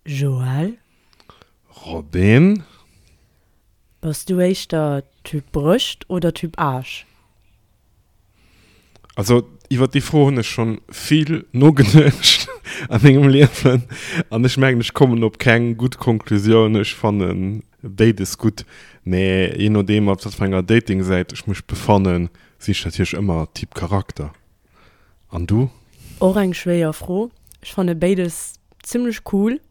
Joël? Robin? Bass du éischter Typ Brëscht oder Typ Aarsch? Also iwwer déi Fro hunn ech schonn vill nogeduecht a mengem Liewen an ech mengen ech kommen op keng gutt Konklusioun. Ech fanne béides gutt, mä jee nodeem op wat fir enger Dating-Säit ech mech befannen, sinn ech natierlech ëmmer Typ Charakter. An du? Och eng schwéier Fro. Ech fanne béides zimmlech cool,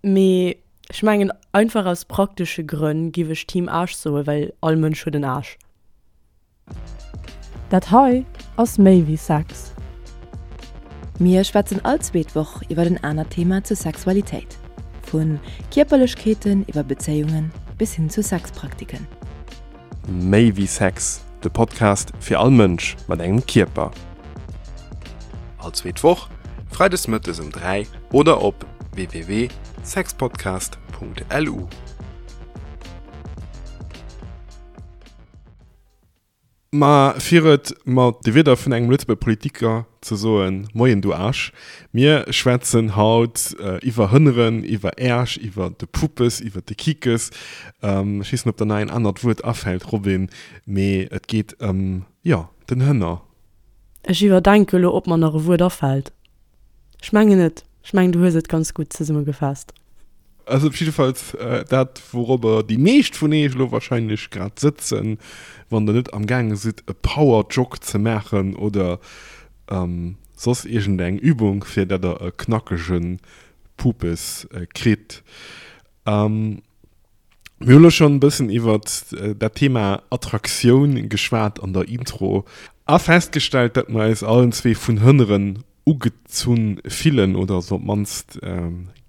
mee ech mengen einfach aus praktesche Grënn giff ech Team Aarsch soen, well all Mënsch huet en Aarsch. Dat hei ass méi wéi Sex. Mir schwätzen all zweet Woch iwwer en anert Thema zur Sexualitéit. Vu Kierperlechkeeten iwwer Bezéiungen bis hin zu Sexpraktiken. Méi wéi Sex, de Podcast fir all Mënsch mat engem Kierper. All zweet Woch, freides mëttes um 3 oder op www.sexpodcast.lu. Ma fir et mat de Wierder vun engem Lëtzebuerger Politiker ze soen, Moien du Aarsch. Mir schwätzen haut iwwer Hënneren, iwwer Äersch, iwwer de Puppes, iwwer de Kikes. Ech weess net, ob der nach een anert Wuert afält, Robin, mee et geet ëm, jo, den Hënner. Ech iwwerdenke lo, ob mer nach e Wuert afält. Ech mengen net. Ech mengen, du hues et ganz gutt zesummegefaasst. Also op jiddefalls dat, wourobber déi meescht vun eech elo wahrscheinlech grad sëtzen, wann der net am gaange sidd e Power-Jog ze maachen oder soss iergendeng Übung, fir dat der e knackege Pupes kritt. Mir hunn elo schonn e bëssen iwwert dat Thema Attraktioun geschwat an der Intro a festgestellt, dat mer eis allen zwee vun Hënneren ugezunn fillen oder se op d'mannst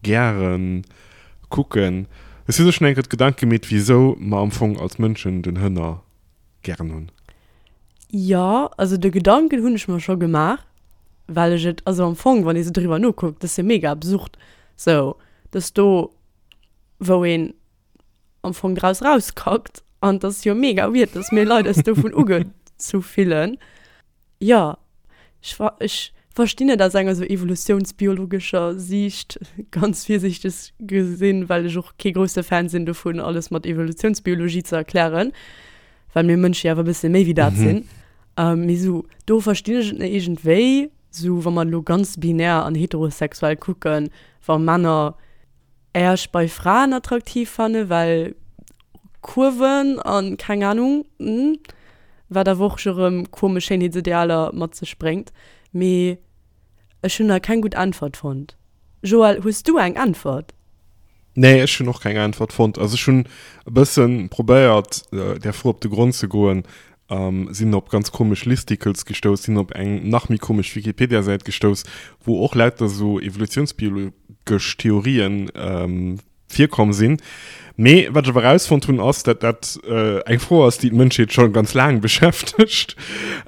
gäre kucken. Hues du der schonn eng Kéier d'Gedanke gemeet, wisou mer am Fong als Mënschen den Hënner gären hunn? Jo, also de Gedanken hunn ech mer scho gemaach, well ech et, also am Fong, wann ee sou driwwer nokuckt, dat ass jo mega absurd, sou dass do wou een am Fong draus rauskackt an das jo mega weird, dass mir Leit eis dovun ugezu fillen. Jo, ech ver ech verstinn et aus enger sou evolutiounsbiologescher Siicht, ganz virsiichteg gesinn, well ech och kee grousse Fan sinn dovun, alles mat Evolutiounsbiologie ze erklären, well mir Mënsche jo awer e bësse méi wéi dat sinn. Mee sou do verstinn ech et net iergendwéi, sou wa mer elo ganz binär an heterosexuell kucken, wa Männer Äerch bei Fraen attraktiv fannen, well Kurven an keng Ahnung, wat awer och scho rëm komesch Schéinheetsidealer mat sech bréngt. Mee ech hunn nach keng gutt Äntwert fonnt. Joël, hues du eng Äntwert? Nee, ech hunn och keng Äntwert fonnt. Also ech hunn e bëssen probéiert där Fro op de Grond ze goen, sinn op ganz komesch Listicles gestouss, sinn op eng nach méi komesch Wikipedia-Säit gestouss, wou och lauter sou evolutiounsbiologesch Theorien virkomm sinn. Mee wat ech awer erausfonnt hunn, ass, dat dat eng Fro ass, déi d'Mënschheet scho ganz laang beschäftegt.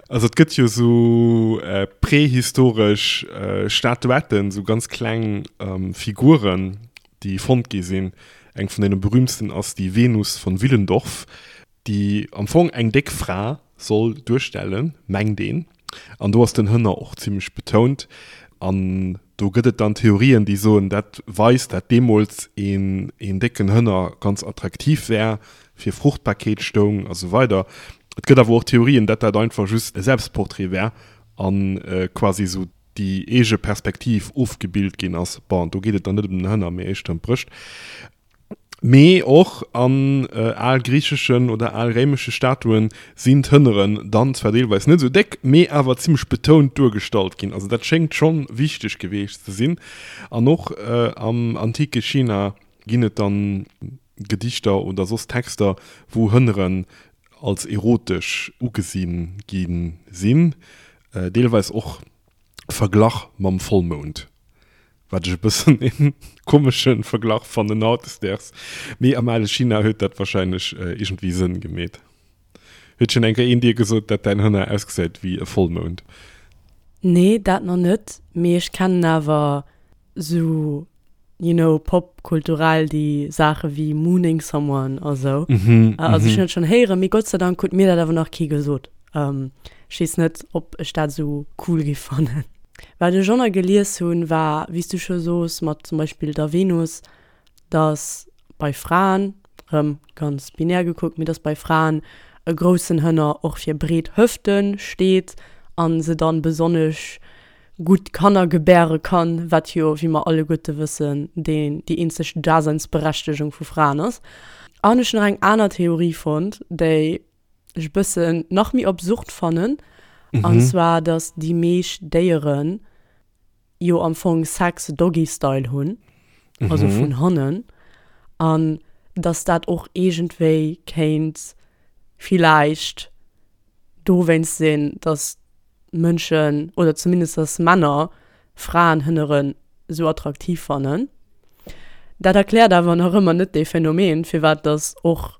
Also et gëtt jo sou prehistoresch Statuetten, sou ganz kleng Figuren, déi fonnt gi sinn. Eng vun deene berühmtsten ass déi Venus von Willendorf, déi am Fong eng déck Fra soll duerstellen, mengt een, an do ass den Hënner och zimlech betount, an do gëtt et dann Theorien, déi soen, dat weist, dat deemools een een décken Hënner ganz attraktiv wär, fir Fruchtbarkeet stoung a sou weider. Et gëtt awer och Theorien, dat dat einfach just e Selbstportrait wär a quasi sou déi eege Perspektiv ofgebilt ginn ass. Bon, do geet et dann net ëm den Hënner, mee éischter ëm d'Brëscht. Mee och an algriicheschen oder alréimesche Statuen sinn d'Hënneren dann zwar deelweis net esou déck, mee awer zimmlech betount duergestallt ginn. Also dat schéngt schonn wichteg geweecht ze sinn. An och am antike China ginn et dann Gedichter oder soss Texter, wou Hënneren als erotesch ugesi gi sinn, deelweis och verglach mam Vollmound. Wat ech e bëssen een komeschen Verglach fannen hautdesdaags, mee am ale China huet dat wahrscheinlech iergendwéi Sënn gemeet. Huet schon eng Kéier een dir gesot, dat däin Hënner ausgesäit wéi e Vollmound? Nee, dat nach net, mee ech kennen awer sou, you know, popkulturell déi Saache wéi mooning someone a sou. Also ech hunn dat schonn héieren, mee Gott sei Dank huet mir dat awer nach kee gesot. Ech weess net, ob ech dat sou cool géif fannen. Wat ech och nach gelies hunn, war, wéi s du scho sos, mat zum Beispill der Venus, dass bei Fraen, rëm ganz binär gekuckt, mee dass bei Fraen e groussen Hënner och fir breet Hëfte steet a se dann besonnesch gutt Kanner gebäre kann, wat jo, wéi mer alleguerte wëssen, deen, déi eenzeg Daseinsberechtegung vu Fraen ass. An ech hunn nach eng aner Theorie fonnt, déi ech e bëssen nach méi absurd fannen, an zwar, dass déi meescht Déieren jo am Fong Sex Doggy-Style hunn, also vun hannen, an dass dat och iergendwéi kéint villäicht dowéinst sinn, dass Mënschen, oder zumindest dass Männer Fraenhënneren esou attraktiv fannen. Dat erkläert awer nach ëmmer net dee Phänomen, firwat dass och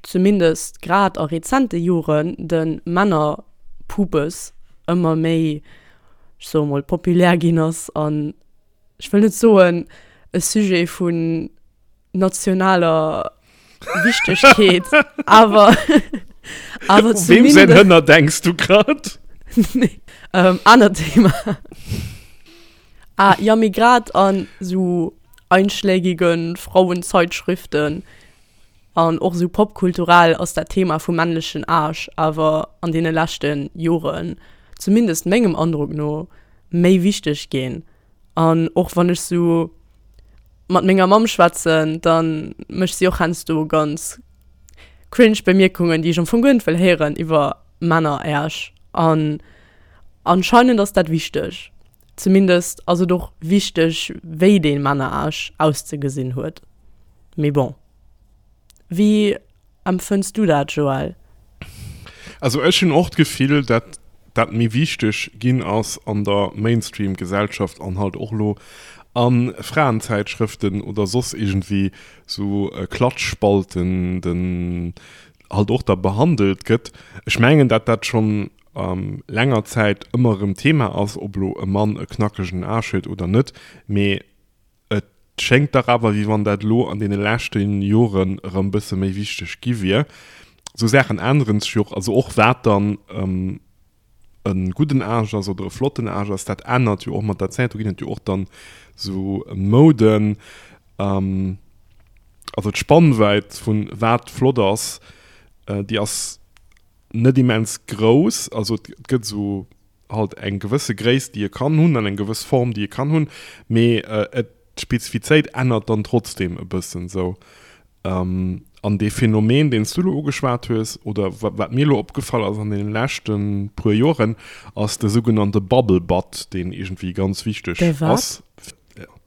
zumindest grad a rezente Joren de Männerpubes ëmmer méi, ech soe mol, populär ginn ass an, ech wëll net soen, e Sujet vun nationaler Wichtegkeet, awer awer U weem säin Hënner denks du grad? Nee, ähm, anert Thema. Ah, jo, mee grad an sou einschlägigen Frauenzeitschriften an och sou popkulturell ass dat Thema vum männlechen Aarsch awer an deene leschte Joren, zumindest mengem Androck no, méi wichteg ginn. An och wann ech sou mat menger Mamm schwätzen, da mécht si och heiansdo ganz cringe Bemierkungen, déi ech am Fong guer net wëll héieren iwwer Männeräersch. An anscheinend ass dat wichteg. Zumindest ass et och wichteg, wéi dee Männerarsch auszegesinn huet. Mee bon. Wéi empfënns du dat, Joël? Also ech hunn och d'Gefill, dat dat méi wichteg ginn ass an der Mainstream-Gesellschaft an halt och elo a Fraenzäitschrëften oder soss iergendwéi sou Klatschspalten den halt och da behandelt gëtt. Ech mengen, dat dat schonn länger Zäit ëmmer erëm Thema ass, ob elo e Mann e knackegen Aarsch huet oder net, mee et schéngt dach awer, wéi wann dat elo an deene leschte Joren erëm bësse méi wichteg gi wier. Esou Saachen änneren sech jo och, also och wat dann e gudden Aarsch ass oder e flotten Aarsch ass, dat ännert jo och mat der Zäit. Do ginn et jo och dann esou Mouden, also d'Spannwäit vun wat flott ass, déi ass net immens grouss, also et gëtt esou halt eng gewësse Gréisst déi e kann hunn an eng gewëss Form déi e kann hunn, mee et d'Spezifizéit ännert dann trotzdem e bëssen esou. An dee Phänomen deen s du elo ugeschwat hues oder wat mir elo opgefall ass an deene leschte puer Joren, ass de sougenannte Bubble Butt, deen iergendwéi ganz wichteg ass.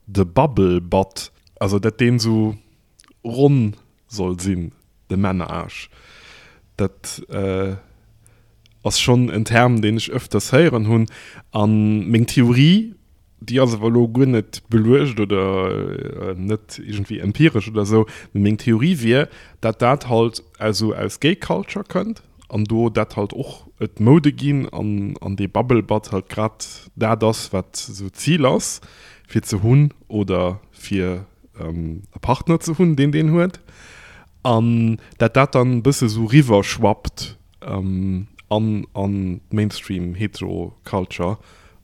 De Bubble Butt, also dat deen esou ronn soll sinn, de Männerarsch. Dat ass schonn en Term, deen ech ëfters héieren hunn. A meng Theorie, déi ass awer elo guer net beluecht oder net iergendwéi empiresch oder esou, mee meng Theorie wier, dat dat halt esou aus Gay Culture kënnt an do dat halt och et Moude ginn an an dee Bubble Butt halt grad dat ass, wat esou d'Zil ass, fir ze hunn oder fir e Partner ze hunn, deen deen huet, an dat dat dann e bësse sou riwwer schwappt an an d'Mainstream Hetero Culture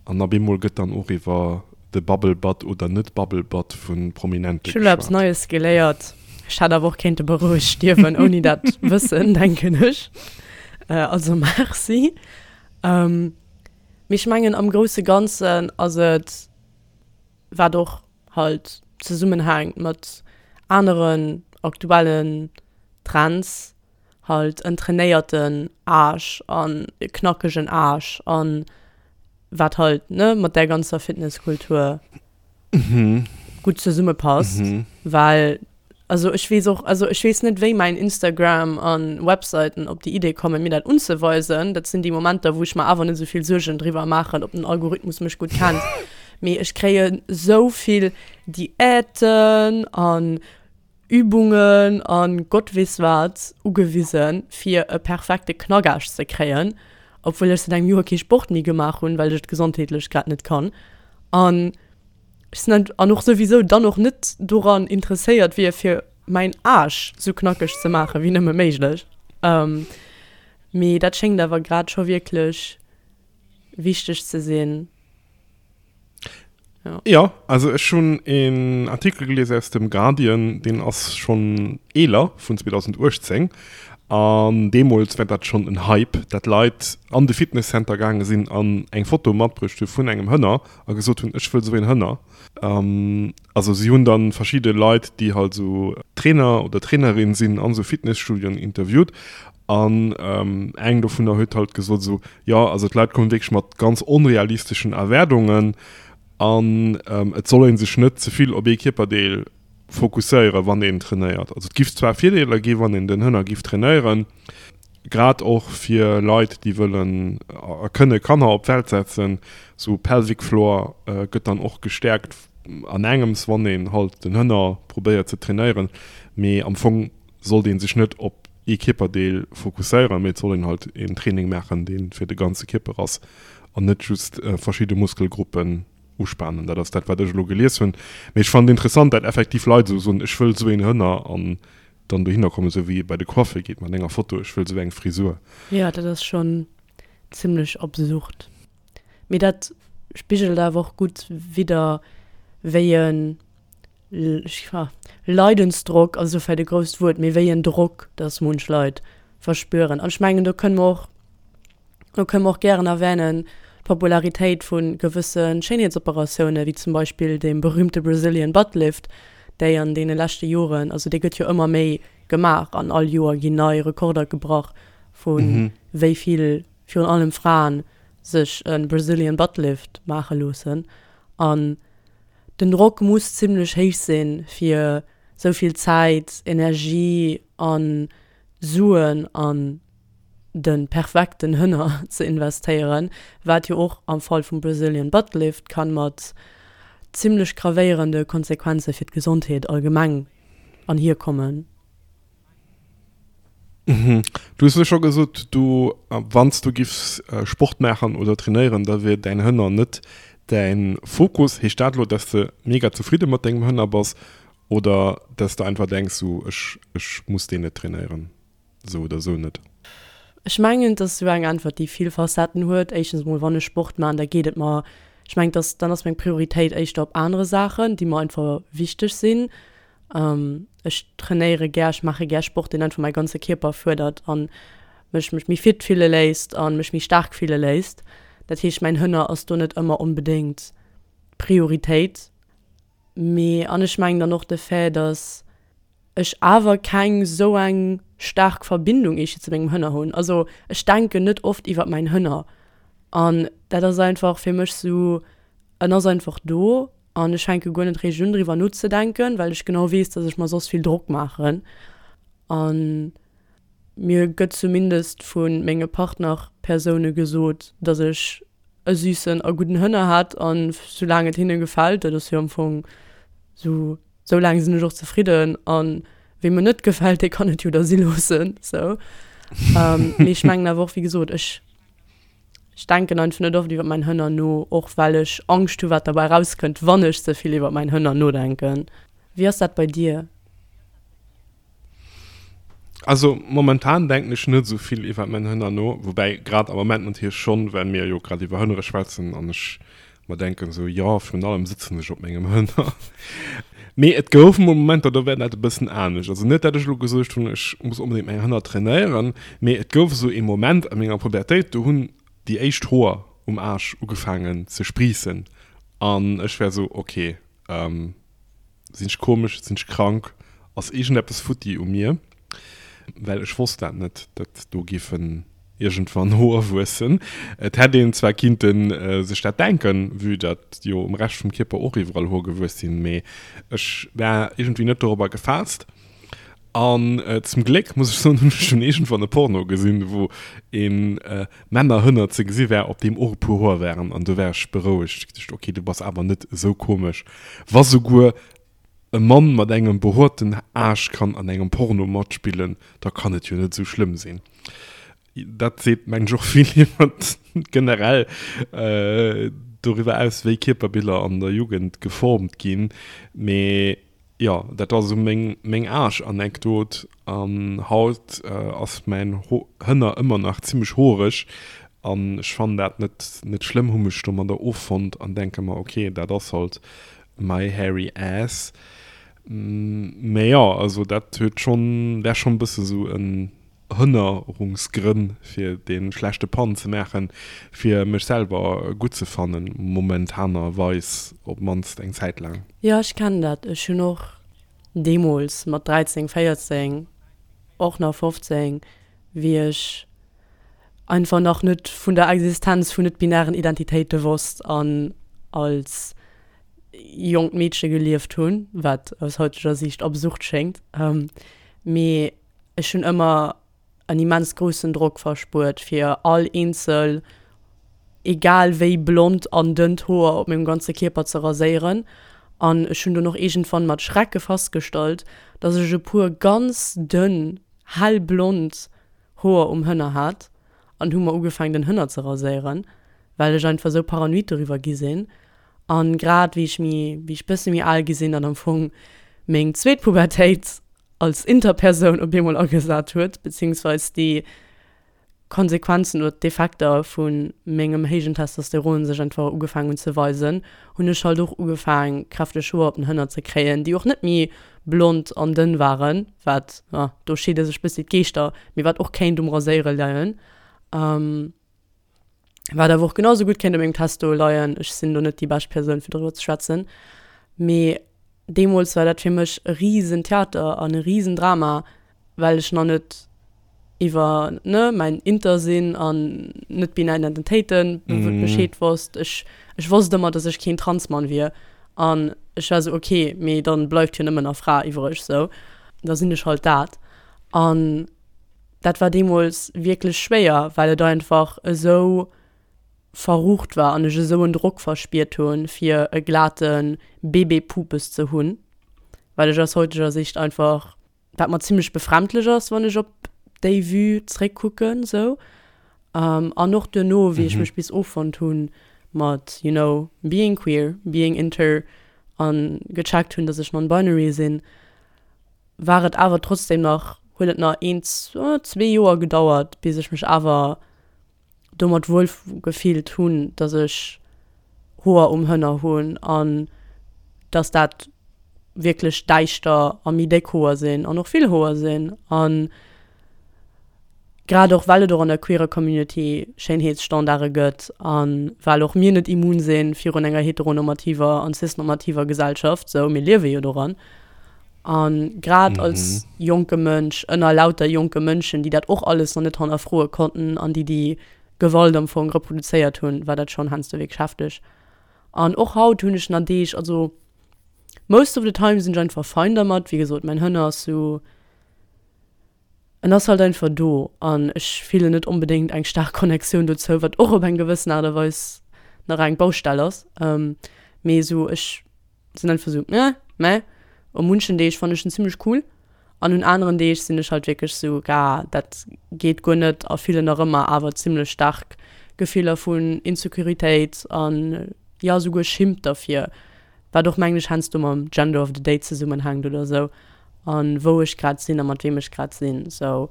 an op eemol gëtt dann och iwwer de Bubble Butt oder net Bubble Butt vu Prominente Ech hu lo eppes geschwat. Neies geléiert. Ech hätt awer och kéinte berouegt stierwen ouni dat Wëssen, denken ech. Also merci. Mee ech mengen am grousse Ganzen ass et, wat och halt zesummenhänkt mat aneren aktuellen Trends, halt en trainéierten Aarsch an e knackegen Aarsch an wat halt, ne, mat där ganzer Fitnesskultur gutt zesummepasst, well Also ech weess och, also ech weess net wéi mäin Instagram an Webseiten op déi Idee kommen mir dat unzeweisen. Dat sinn déi Momenter wou ech mer awer net esou vill Suergen driwwer maachen ob den Algorithmus mech gutt kennt. Mee ech kréien esou vill Diäten an Übungen an Gott weess wat ugewisen fir e perfekte Knackaarsch ze kréien, obwuel ech säit engem Joer kee Sport méi gemaach hunn, well ech et gesondheetlech grad net kann. An Ech sinn net, an och souwisou dann och net doran interesséiert wier, fir mäin Aarsch sou knackeg ze maachen, wéi nëmme méiglech. Mee dat schéngt awer grad scho wierklech wichteg ze sinn. Jo. Jo, also ech hunn een Artikel gelies aus dem Guardian, deen ass schonn eeler, vun 2018, an deemools war dat schonn en Hype, dat Leit an de Fitnesscenter gaange sinn an eng Foto matbruecht hu vun engem Hënner a gesot hunn, ech wëll esou een Hënner. Also si hunn dann verschidde Leit, déi halt esou Trainer oder Trainerin sinn an esou Fitnesstudioen interviewt An eng dovunner huet halt gesot esou, jo, also d'Leit kommen wierklech mat ganz onrealisteschen Erwaardungen an et soll ee sech net ze vill op ee Kierperdeel fokusséieren, wann een trainéiert. Also et giff zwar Virdeeler gi wann een den Hënner giff trainéieren, grad och fir Leit, déi wëllen a kënne Kanner op d'Welt setzen, sou Pelvic Floor gëtt dann och gestäerkt an engems, wann een halt den Hënner probéiert ze trainéieren, mee am Fong sollt een sech net op ee Kierperdeel fokusséieren, mee et soll een halt een Training maachen, dee fir de ganze Kierper ass an net just verschidde Muskelgruppen uspanen. Dat ass dat, wat ech elo gelies hunn. Mee ech fannen et interessant, dat effektiv Leit esou soen, ech wëll esou een Hënner an dann dohinner kommen, esou wéi ee bei de Coiffeur geet mat enger Foto, ech wëll esou eng Frisur. Jo, dat ass schonn zimmlech absurd. Mee dat spigelt awer och gutt widder, wéi e Leidensdrock ass elo vläicht e grousst Wuert, mee wéi en Drock dass munch Leit verspüren. An ech mengen, do kënne mer och, do kënne mer och gären erwänen d'Popularitéit vu gewësse Schéinheetsoperatiounen, wéi zum Beispill deem berühmte Brazilian Butt Lift, déi an deene leschte Joren, also dee gëtt jo ëmmer méi gemaach an all Joer ginn nei Rekorder gebrach vu wéi vill, virun allem Fraen, sech e Brazilian Butt Lift maache loossen. An Den Drock muss zimlech héich sinn, fir sou vill Zäit, Energie a Suen an de perfekten Hënner ze investéieren, wat jo och am Fall vum Brazilian Butt Lift kann mat zimlech gravéierende Konsequenze fir d'Gesondheet allgemeng anhierkommen. Du hues elo scho gesot, du, wann s du giffs Sport maachen oder trainéieren, da wier däin Hënner net däin Fokus. Heescht dat elo, dass de mega zefridde mat dengem Hënner bass oder dass de einfach denks, sou ech, ech muss deen net trainéieren, sou oder sou net? Ech mengen, et ass sou eng Äntwert, déi vill Facetten huet. Éischtens emol, wann ech Sport maachen, da geet et mer, ech mengen, dass, dann ass meng Prioritéit éischter op anere Saachen, déi mer einfach wichteg sinn. Ech trainéiere gär, ech maache gär Sport, deen einfach mäi ganze Kierper fuerdert an mech mech méi fit fille léisst a mech méi staark fille léisst. Dat heescht, mäin Hënner ass do net ëmmer onbedéngt d'Prioritéit. Mee an ech mengen dann och de Fait, datt ech awer keng esou eng staark Verbindung eescht zu mengem Hënner hunn. Also ech denken net oft iwwer mäin Hënner an dat ass einfach fir mech esou, en ass einfach do An ech fänke guer net réischt un driwwer nozedenken, well ech genau weess, dass ech mer soss vill Drock maachen. A mir gëtt zumindest vu menge Partnerpersoune gesot, dass ech e süssen a gudden Hënner hätt. An soulaang et hinne gefält, dat ass jo am Fong sou, sou laang sinn ech och zefridden. A weem et net gefält, dee kann et jo da si loossen, sou. Mee ech mengen awer och, wéi gesot, ech. Ech denken einfach net oft iwwer mäin Hënner no, och well ech Angscht hu wat derbäi rauskënnt, wann ech ze vill iwwer mäin Hënner nodenken. Wéi ass dat bei dir? Also momentan denken ech net esou vill iwwer mäin Hënner no, woubäi grad am Moment natierlech schonn, well mir jo grad iwwer Hënnere schwätzen an ech mer denken esou, jo, virun allem sëtzen ech op mengem Hënner. Mee et gouf mol Momenter, do war dat e bëssen anescht. Also net, dat ech elo gesot hunn, ech muss onbedéngt mäin Hënner trainéieren, mee et gouf esou ee Moment a menger Pubertéit, do hunn déi éischt Hoer um Aarsch ugefaangen ze spriissen an ech war esou, ok, Sinn ech komesch? Sinn ech krank? Ass iergendeppes futti u mir? Well ech wosst dat net, datt do géifen iergendwann Hoer wuessen. Et hätt een zwar kinnte sech dat denken, vue datt jo um Rescht vum Kierper och iwwerall Hoer gewuess sinn, mee ech war iergendwéi net dorobber gefaasst. An zum Gléck, muss ech soen, hunn ech dunn iergendwann e Porno gesinn, wou ee Männerhënner ze gesi war, op deem och e puer Hoer waren. An do war ech berouegt. Ech geduecht, ok, du bass awer net esou komesch. Wa souguer e Mann mat engem behoerten Aarsch kann an engem Porno matspillen, da kann et jo net esou schlëmm sinn. Dat seet, mengen ech, och vill iwwer generell doriwwer aus, wéi Kierperbiller an der Jugend geformt ginn. Mee jo, dat ass esou meng meng Aarsch-Anekdot. An haut ass mäin Hënner ëmmer nach zimmlech hoereg. An ech fannen dat net net schlëmm, hu mech domadder offonnt an denke mer, ok, dat ass halt my hairy ass. Mä jo, also dat huet schonn, wär schonn e bësse sou en Hënnerungsgrënn fir dee schlechte Pun ze maachen, fir mech selwer gutt ze fannen, momentanerweis op d'mannst eng Zäit laang. Jo, ech kennen dat. Ech hunn och deemools mat 13, 14, och nach 15, wéi ech einfach nach net vun der Existenz vun net-binären Identitéite wosst an als jonkt Meedche gelieft hunn, wat aus heuteger Siicht absurd schéngt, mee ech hunn ëmmer en immens groussen Drock verspuert fir all eenzel, egal wéi blond an dënnt Hoer op mengem ganze Kierper ze raséieren. An ech hunn dunn och iergendwann mat Schrecke festgestallt, dass ech e puer ganz dënn, hellblond Hoer um Hënner hat an hu mer ugefaangen den Hënner ze raséieren, well ech einfach esou paranoid doriwwer gi sinn. An grad wéi ech méi, wéi ech bësse méi al gi sinn an am Fong meng zweet Pubertéit als Interpersoun op eemol agesat huet, beziehungsweis déi Konsequenzen oder d'Effekter vu mengem héijen Testosteron sech einfach ugefaangen hunn ze weisen, hunn ech halt och ugefaang kräfteg Hoer op den Hënner ze kréien, déi och net méi blond an dënn waren, wat, jo, do scheede sech bëssi d'Geeschter, mee wat och kéint um Raséiere leien. Wat awer och genau sou gutt kéint u mengem Testo leien. Ech sinn do net déi bescht Persoun fir doriwwer ze schwätzen. Mee deemools war dat fir mech e risen Theater an e risen Drama, well ech nach net iwwer, ne, mäin Inter-Sinn an net-binär Identitéiten Bescheed wosst. Ech, ech wosst ëmmer, dass ech keen Transmann wier. An ech war sou, okay, mee dann bleift jo nëmmen nach Fra iwwreg, sou. Da sinn ech halt dat. An dat war deemools wierklech schwéier, well et einfach esou verrucht war an ech esou en Drock verspiert hunn, fir e glate Bébé-Pupes ze hunn, well ech aus heuteger Sicht einfach, wat mer zimmlech befremdlech ass, wann ech op déi Vue zréckkucken esou. An och duerno, wéi ech mech bis offonnt hunn mat, you know, being queer, being inter an gecheckt hunn, dass ech non-binary sinn, war et awer trotzdem nach, huet et nach een, zwee Joer gedauert, bis ech mech awer domat wuel gefillt hunn, dass ech Hoer um Hënner hunn an dass dat wierklech däischter a méi déck Hoer sinn an och vill Hoer sinn. An grad och well et och an der queerer Community Schéinheetsstandarde gëtt a well och mir net immun si virun enger heteronormativer an cisnormativer Gesellschaft, sou, mir liewe jo doran. A grad als jonke Mënsch ënner lauter jonke Mënschen, déi dat och alles nach net hannerfroe konnten an déi déi Gewalt am Fong reproduzéiert hunn, war dat schonn heiansdo wierklech hefteg. An och haut hunn ech nach Deeg, also most of the time sinn ech einfach fein dermat. Wéi gesot, mäin Hënner ass sou, En ass halt einfach do an ech fillen net onbedéngt eng staark Connectioun dozou, wat och op eng gewëssen Aart a Weis nach eng Baustell ass. Mee esou ech sinn einfach esou eh, meh. U munchen Deeg fannen ech en zimmlech cool an un aneren Deeg sinn ech halt wierklech esou, ga dat geet guer net a fillen nach ëmmer awer zimmlech staark Gefiller vun Insecuritéit an jo esouguer Schimmt derfir. Wat och mengen ech heiansdo mam Gender of the Day zesummenhänkt oder sou an wou ech grad sinn a mat weem ech grad sinn sou.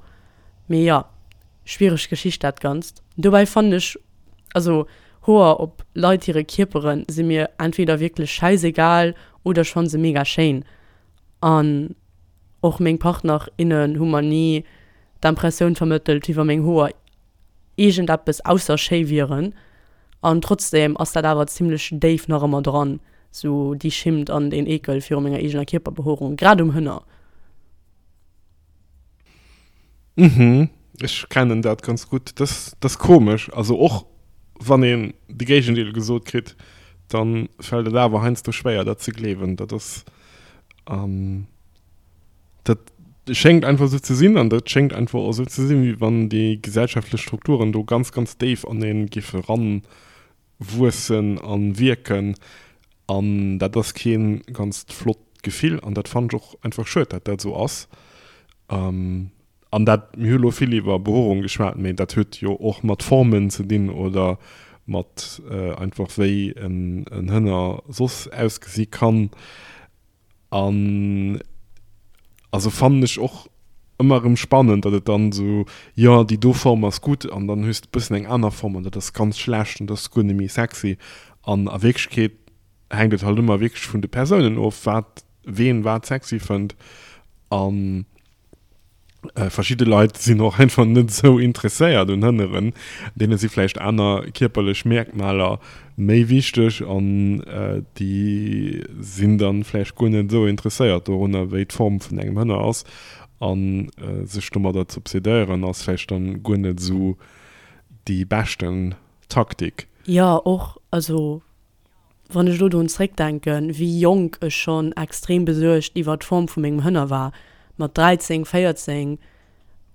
Mee jo, schwiereg Geschicht dat Ganzt. Dobäi fannen ech, also Hoer op Leit hire Kierperen si mir entweder wierklech schäisegal oder ech fanne se mega schéin. An och meng Partner, innen hu mer ni d'Impressioun vermëttelt wéi wa meng Hoer iergendeppes ausser schéi wieren. An trotzdem ass dat awer zimlech déif nach ëmmer dran, sou déi Schimmt an deen Eekel viru menger eegener Kierperbehoerung, grad um Hënner. Mhm, ech kennen dat ganz gutt. Dat ass komesch. Also och wann een de Géigendeel gesot kritt, dann fält et awer heiansdo schwéier dat ze gleewen. Dat ass. Dat schéngt einfach esou ze sinn an dat schéngt einfach och esou ze sinn, wéi wann déi gesellschaftlech Strukturen do ganz, ganz déif an ee géife ranwuessen a wierken. An dat ass kee ganzt flott Gefill an dat fannen ech och einfach schued, datt dat esou ass. An dat, mir hu lo vill iwwer Behoerung geschwat, mee dat huet jo och mat Formen ze dinn oder mat einfach wéi en Hënner soss ausgesi kann. An also fannen ech och. Ëmmer erëm spannend, datt et dann esou, jo déi do Form ass gutt an dann hues de bëssen eng aner Form an dat ass ganz schlecht an dat ass guer net méi sexy. An a Wierklechkeet hänkt et halt ëmmer wierklech vun de Persounen of, wat ween wat sexy fënnt. An verschidde Leit sinn och einfach net esou interesséiert un Hënneren, deene si vläicht aner kierperlech Merkmaler méi wichteg an déi sinn dann vläicht guer net esou interesséiert dorunner wéi d'Form vun engem Hënner ass an sech domadder ze obsedéieren ass vläicht dann guer net esou déi beschten Taktik. Jo och, also wann ech elo drun zréckdenken wéi jonk ech schonn extrem besuergt iwwer d'Form vu mengem Hënner war, mat 13, 14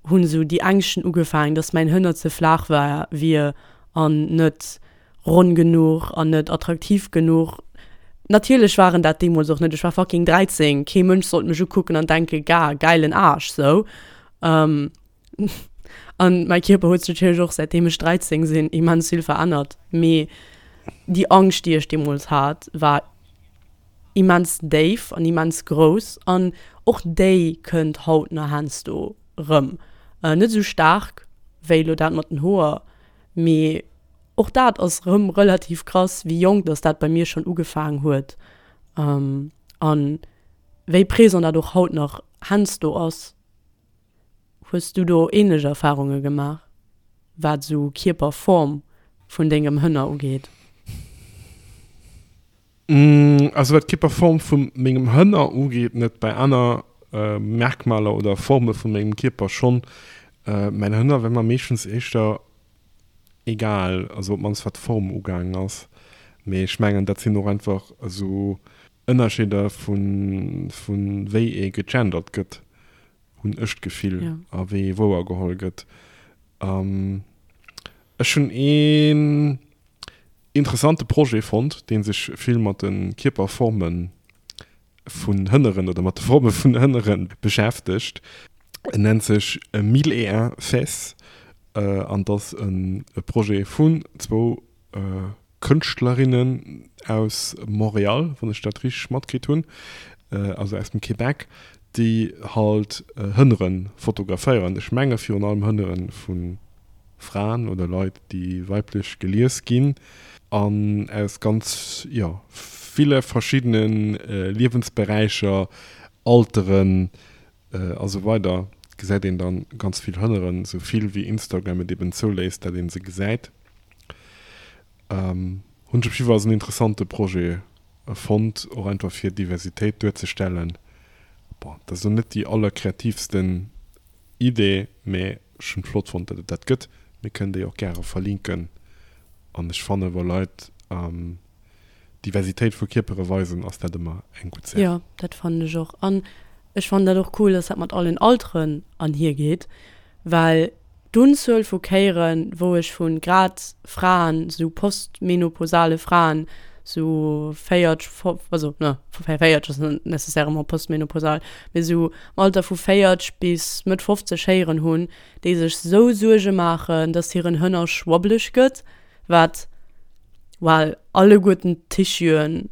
hunn esou déi Ängschten ugefaangen, dass mäin Hënner ze flaach war, wier an net ronn genuch an net attraktiv genuch. Natierlech war en dat deemools och net, ech war fucking 13, kee Mënsch sollt mech ukucken an denke ga gäilen Aarsch sou. An mäi Kierper huet sech natierlech och säitdeem ech 13 sinn immens vill verännert, mee déi Angscht déi ech deemools hat war immens déif an immens grouss an och déi kënnt haut nach heiansdo rëm. Net esou staark wéi elo dat mat den Hoer, mee och dat ass rëm relativ krass, wéi jonk dass dat bei mir schonn ugefaangen huet an wéi présent dat och haut nach heiansdo ass. Hues du do ähnlech Erfahrunge gemaach, wat esou Kierperform vun dengem Hënner ugeet? Also wat d'Kierperform vu mengem Hënner ugeet net, bei aner Merkmaler oder Forme vu mengem Kierper schonn. Mäin Hënner war mer meeschtens éischter egal, also op d'mannst wat d'Form ugaangen ass. Mee ech mengen dat sinn och einfach esou Ënnerscheeder vu wéi ee gegendert gëtt, hunn ech d'Gefill, a wéi ee wouergeholl gëtt. Ech hunn een interessante Projet fonnt, dee sech vill mat de Kierperforme vun Hënneren oder mat de Forme vun Hënnere beschäftegt. En nennt sech Mille et un fesses an et ass e Projet vun zwou Kënschtlerinnen aus Montréal, wann ech dat richteg matkritt hunn, also aus dem Québec, déi halt Hënnere fotograféieren. Ech menge virun allem Hënnere vu Fraen oder Leit, déi weiblech gelies ginn an aus ganz, jo, ville verschiddene Liewensberäicher, Alteren a sou weider gesäit een dann ganz vill Hënneren, sou vill wéi Instagram et eben zouléisst, dat een se gesäit. Hunn ech op jiddwer Fall als en interessante Projet fonnt, och einfach fir Diversitéit duerzestellen. Bon, dat ass elo net déi allerkreativsten Idee, mee ech hunn et flott fonnt, dat et dat gëtt. Mir kënnen déi och gäre verlinken an ech fanne wa Leit Diversitéit vu Kierpere weisen, ass dat ëmmer eng gutt Saach. Jo, dat fannen ech och. An ech fannen dat och cool, dass dat mat allen Alteren anhiergeet, well d'Unzuel vu Kéieren, wou ech vu grad Fraen, sou postmenopausale Fraen, sou 40, also ne, 40 ass net nécessairement postmenopausal, mee sou am Alter vu 40 bis Mëtt 50 héieren hunn, déi sech sou Suerge maachen, dass hiren Hënner schwabbeleg gëtt, wat, well alleguerten d'Tissuen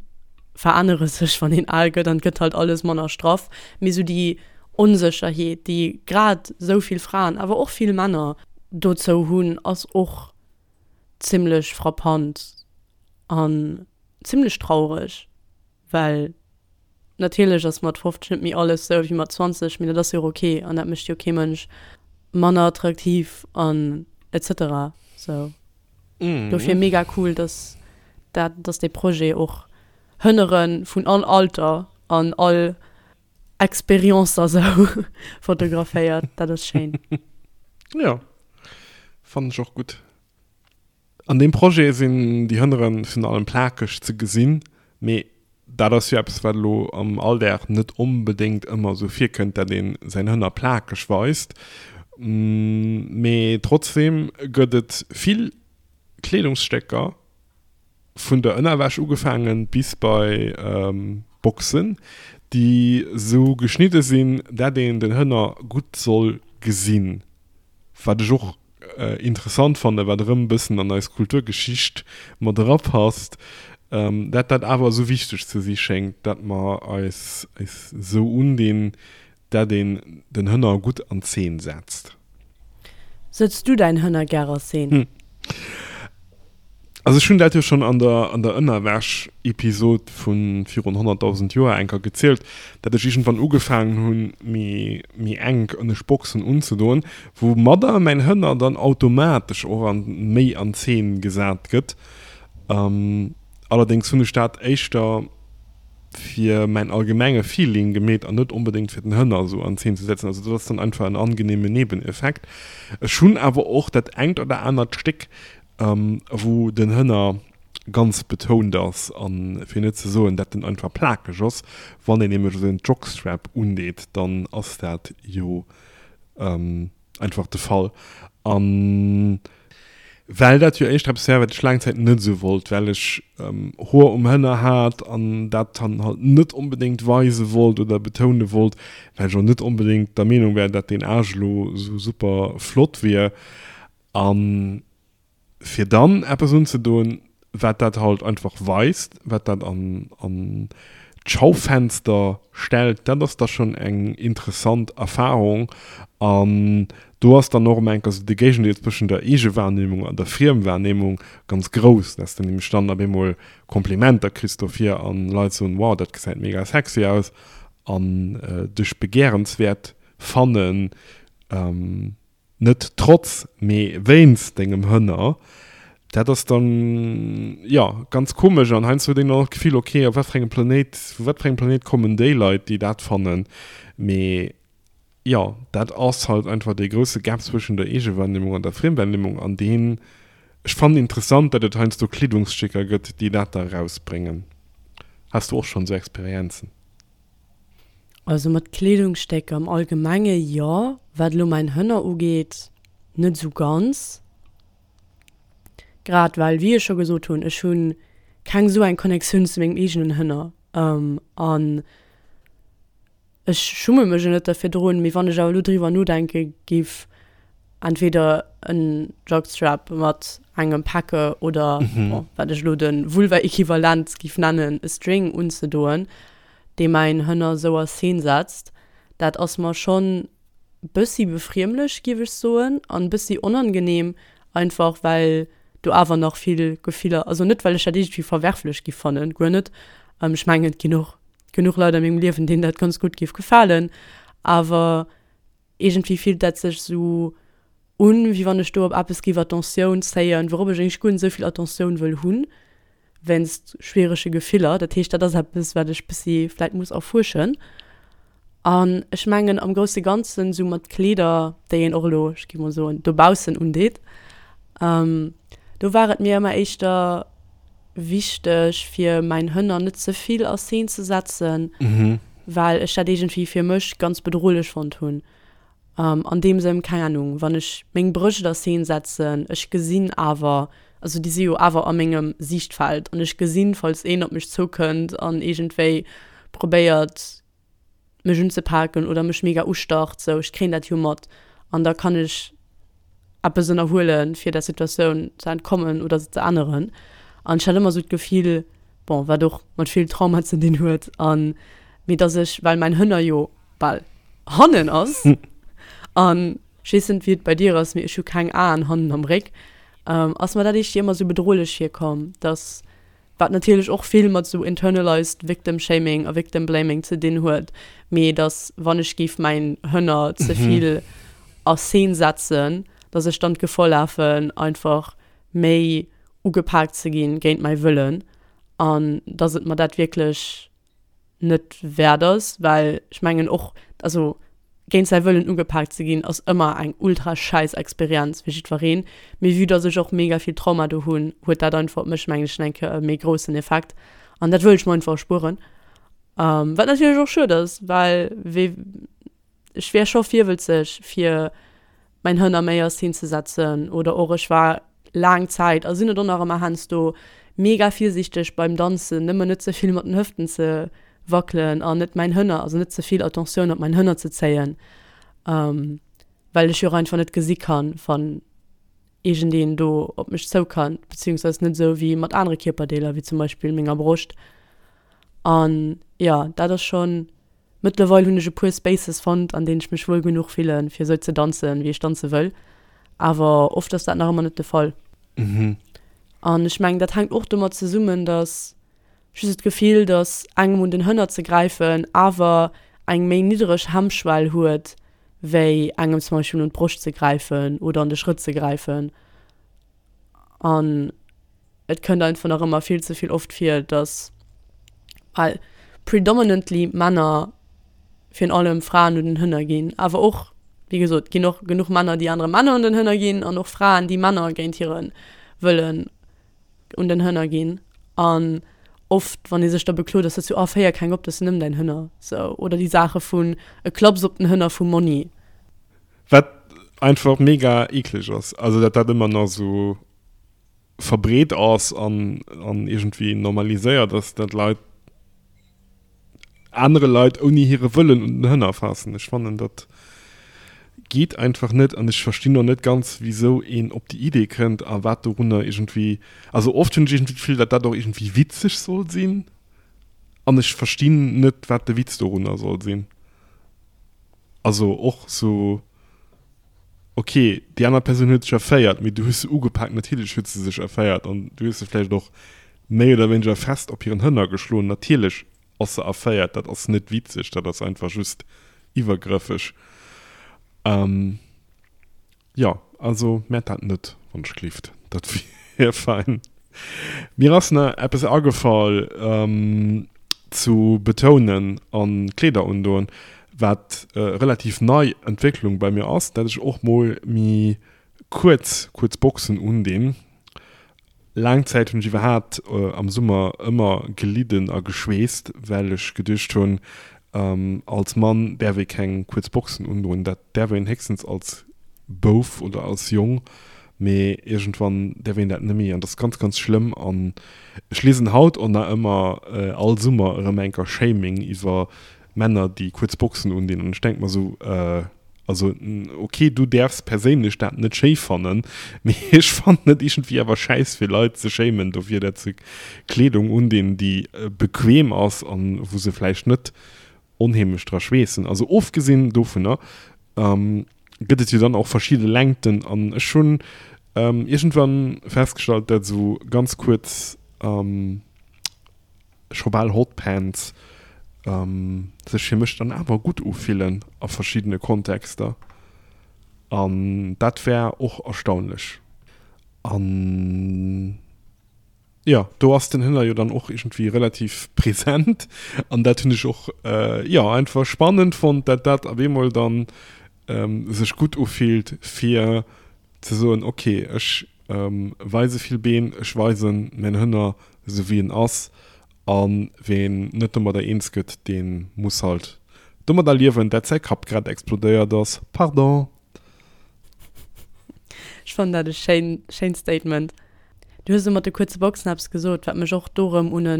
verännere sech, wann een al gëtt an et gëtt halt alles manner straff, mee sou déi Onsécherheet, déi grad sou vill Fraen, awer och vill Männer dozou hunn, ass och zimmlech frappant an zimmlech traureg, well natierlech ass mat 50 net méi alles sou wéi mat 20, mee dat ass jo och ok an dat mécht jo kee Mënsch manner attraktiv an etc. Sou dofir mega cool, dass dat, dass dee Projet och Hënnere vun all Alter an all Experiencer sou fotograféiert, dat ass schéin. Jo, fannen ech och gutt. An deem Projet sinn déi Hënnere virun allem plakeg ze gesinn, mee dat ass jo eppes, wat elo am Alldag net onbedéngt ëmmer esou virkënnt, dat ee säin Hënner plakeg weist. Mee trotzdeem gëtt et vill Kleedungsstécker, vun der Ënnerwäsch ugefaangen bis bei Boxen, déi sou geschnidde sinn, dat een den Hënner gutt soll gesinn. Wat ech och interessant fannen, wat erëm e bëssen an eis Kulturgeschicht mat erapasst, dat dat awer esou wichteg ze si schéngt, dat mer eis esou undinn. dat een den Hënner gutt an Zeen setzt. Sëtz du däin Hënner gär a Szene? Also ech hunn dat jo schonn an der an der Ënnerwäsch-Episod vu virun 100.000 Joer eng Kéier gezielt, dat ech iergendwann ugefaangen hunn, méi méi enk ënnescht Boxen unzedoen, woumadder mäin Hënner dann automatesch och an méi an Zeen gesat gëtt. Allerdéngs hunn ech dat éischter fir mäin allgemenge Feeling gemeet an net onbedéngt fir den Hënner esou an Zeen ze setzen. Also dat ass dann einfach en angenehme Nebeneffekt. Ech hunn awer och dat engt oder anert Stéck, wou den Hënner ganz betount ass an fir net ze soen, dat en einfach plakeg ass. Wann een nämlech esou en Jockstrap undeet, dann ass dat jo einfach de Fall. An well dat jo éischter eppes war, wat ech laang Zäit net esou wollt, well ech Hoer um Hënner hat an dat dann halt net onbedéngt weise wollt oder betoune wollt, well ech och net onbedéngt der Meenung war, dat deen Aarsch elo esou super flott wier. An fir dann eppes unzedoen, wat dat halt einfach weist, wat dat an, an d'Schaufenster stellt, dat ass da schonn eng interessant Erfahrung. An do ass dann och ëm eng Kéier esou de Géigendeel zwëschen der Eegewahrnehmung an der Friemwahrnehmung ganz grouss, dass de nämlech dann op eemol Komplimenter kriss dofir an Leit soen, wow, dat gesäit mega sexy aus an dech begehrenswäert fannen. Net trotz, mee wéinst dengem Hënner. Dat ass dann, jo, ganz komesch an heiansdo huet een dann och d'Gefill, ok, op wat fir engem Planéit, vu wat fir engem Planéit kommen déi Leit, déi dat fannen? Mee jo, dat ass halt einfach dee grousse Gap zwëschen der Eegewahrnehmung an der Friemwahrnehmung an deen, ech fannen interessant, datt et heiansdo Kleedungsstécker gëtt, déi dat da erausbréngen. Has du och schonn esou Experienzen? Also mat Kleedungsstécker am Allgemenge jo, wat elo mäin Hënner ugeet net esou ganz. Grad well, wéi ech scho gesot hunn, ech hu keng esou eng Connectioun zu mengem eegenen Hënner an ech schumme mech jo net derfir drun. Mee wann ech awer elo driwwer nodenke giff, entweder en Jockstrap mat engem Packe oder, bon, wat ech elo de Vulva-Equivalent giff nennen, e String unzedoen, dee mäin Hënner sou a Szene setzt, dat ass mer schonn bëssi befriemlech, giff ech soen, an bëssi onangenehm, einfach well do awer nach vill Gefiller, also net well ech dat iergendwéi verwerflech giff fannen, guer net, ech mengen et ginn och genuch Leit a mengem Liewen, deenen dat ganz gutt giff gefalen, awer iergendwéi fillt dat sech sou un, wéi wann ech do op eppes giff Attentioun zéien, wourop ech eigentlech guer net esou vill Attentioun wëll hunn. wéinst schwierege Gefiller. Dat heescht, dat ass eppes, wat ech bëssi vläit muss erfuerschen. An ech mengen am grousse Ganzen, sou mat Kleeder, déi een och elo, ech gi mol soen, dobaussen undeet, do war et mir ëmmer éischter wichteg, fir mäin Hënner net ze vill a Szene ze setzen, well ech dat iergendwéi fir mech ganz bedrohlech fonnt hunn. An deem Sënn, keng Ahnung, wann ech meng Brëscht a Szene setzen, ech gesinn awer, also déi si jo awer a mengem Siichtfeld an ech gesinn, falls een op mech zoukënnt an iergendwéi probéiert mech unzepaken oder mech mega ustarrt, sou, ech kréien dat jo mat an da kann ech eppes ënnerhuelen, fir der Situatioun ze entkommen oder se ze änneren. An ech hat ëmmer sou d'Gefill, bon, wat och mat vill Trauma ze dinn huet, an mee dass ech, well mäin Hënner jo bal hannen ass an ech weess net wéi et bei dir ass, mee ech hu keng Aen hannen am Réck, ass mer dat éischter ëmmer sou bedrohlech virkomm, dass, wat natierlech och vill mat sou internalized victim shaming a victim blaming ze dinn huet, mee dass wann ech géif mäin Hënner ze vill a Szene setzen, dass ech dann d'Gefor lafen einfach méi ugepaakt ze ginn géint mäi Wëllen an dass et mer dat wierklech net wäert ass, well ech mengen och, also géint säi Wëllen ugepaakt ze ginn ass ëmmer eng ultra schäiss Experienz fir jiddwereen, mee vue dass ech och mega vill Trauma do hunn, huet dat einfach op mech mengen ech eng Kéier e méi groussen Effekt an dat wëll ech mer einfach erspueren. Wat natierlech och schued ass, well wee ech wär scho virwëlzeg fir mäin Hënner méi a Szene ze setzen oder och ech war laang Zäit a sinn et och nach ëmmer heiansdo mega virsiichteg beim Danzen, nëmmen net ze vill mat den Hëften ze wackelen an net mäin Hënner, also net ze vill Attentioun op mäin Hënner ze zéien, well ech jo och einfach net gesi kann, wann iergendeen do op mech zoukannt, beziehungsweise net esou wéi mat anere Kierperdeeler, wéi zum Beispill menger Broscht. An jo, dat ass schonn. Mëttlerweil hunn ech e puer Spaces fonnt, an deenen ech mech wuel genuch fillen, fir esou ze danzen, wéi ech danze wëll. Awer oft ass dat nach ëmmer net de Fall. An ech mengen, dat hänkt och domat zesummen, dass just d'Gefill, dass engem un den Hënner ze gräifen awer eng méi niddereg Hemmschwell huet, wéi engem zum Beispill un d'Broscht ze gräifen oder an de Schrëtt ze gräifen. An et kënnt einfach nach ëmmer vill ze vill oft vir, dass, well predominantly Männer virun allem Fraen un den Hënner ginn, awer och, wéi gesot, ginn och genuch Männer, déi anere Männer un den Hënner ginn an och Fraen, déi Männer géint hire Wëllen un den Hënner ginn. An oft, wann ee sech da beklot, ass dat sou, oh, féier keng op, dat ass nëmmen däin Hënner, sou. Oder déi Saache vun e Klaps op den Hënner vum Monni. Wat einfach mega eekleg ass, also dat dat ëmmer nach sou verbreet ass an an iergendwéi normaliséiert ass, dat Leit anere Leit ouni hire Wëllen un den Hënner faassen. Ech fannen dat geet einfach net an ech verstinn och net ganz wisou een op déi Idee kënnt a wat dorunner iergendwéi, also oft hunn ech iergendwéi d'Gefill, dat dat och iergendwéi witzeg soll sinn an ech verstinn net wat de Witz dorunner soll sinn. Also och sou, ok, déi aner Persoun huet sech erféiert, mee du hues se ugepaakt, natierlech huet se sech erféiert an du hues se vläicht och méi oder wéineger fest op hiren Hënner geschloen, natierlech ass se erféiert, dat ass net witzeg, dat ass einfach just iwwergrëffeg. Jo, also mäert dat net, wann ech gelift, dat wier fein. Mir ass na eppes agefall zu betounen an Kleeder undoen, wat relativ nei Entwécklung bei mir ass, dat ech och mol mi kuerz kuerz Boxen undinn. Laang Zäit hunn ech iwwerhaapt am Summer ëmmer gelidden a geschweesst, well ech geduecht hunn, als Mann däerf ee keng kuerz Boxen undoen. Dat däerf een héchstens als Bouf oder als Jong, mee iergendwann däerf een dat net méi an dat ass ganz, ganz schlëmm. An ech liesen haut och nach ëmmer all Summer erëm enker Shaming iwwer Männer, déi kuerz Boxen undinn. An ech denke mer esou, Also ok, du däerfs perséinlech dat net schéi fannen, mee ech fannen et iergendwéi awer schäiss fir Leit ze shamen dofir dat se Kleedung undinn déi bequem ass an wou se vläicht net onheemlech dra schweessen. Also ofgesinn dovunner gëtt et jo dann och verschidde Längten an ech hunn iergendwann festgestallt dat esou ganz kuerz scho bal Hotpants sech fir mech dann awer gutt ufillen a verschiddene Kontexter an dat war och erstaunlech. An jo, do ass den Hënner jo dann och iergendwéi relativ present an dat hunn ech och jo einfach spannend fonnt, dat dat op eemol dann sech gutt ufillt fir ze soen, ok, ech weise vill Been, ech weisen mäin Hënner esou wéi en ass a ween net domadder eens gëtt, dee muss halt domadder liewen, dat säi Kapp grad explodéiert ass. Pardon! Ech fannen dat e schéin, schéint Statement. Du hues elo mat de kuerze Boxen eppes gesot, wat mech och do erëm un e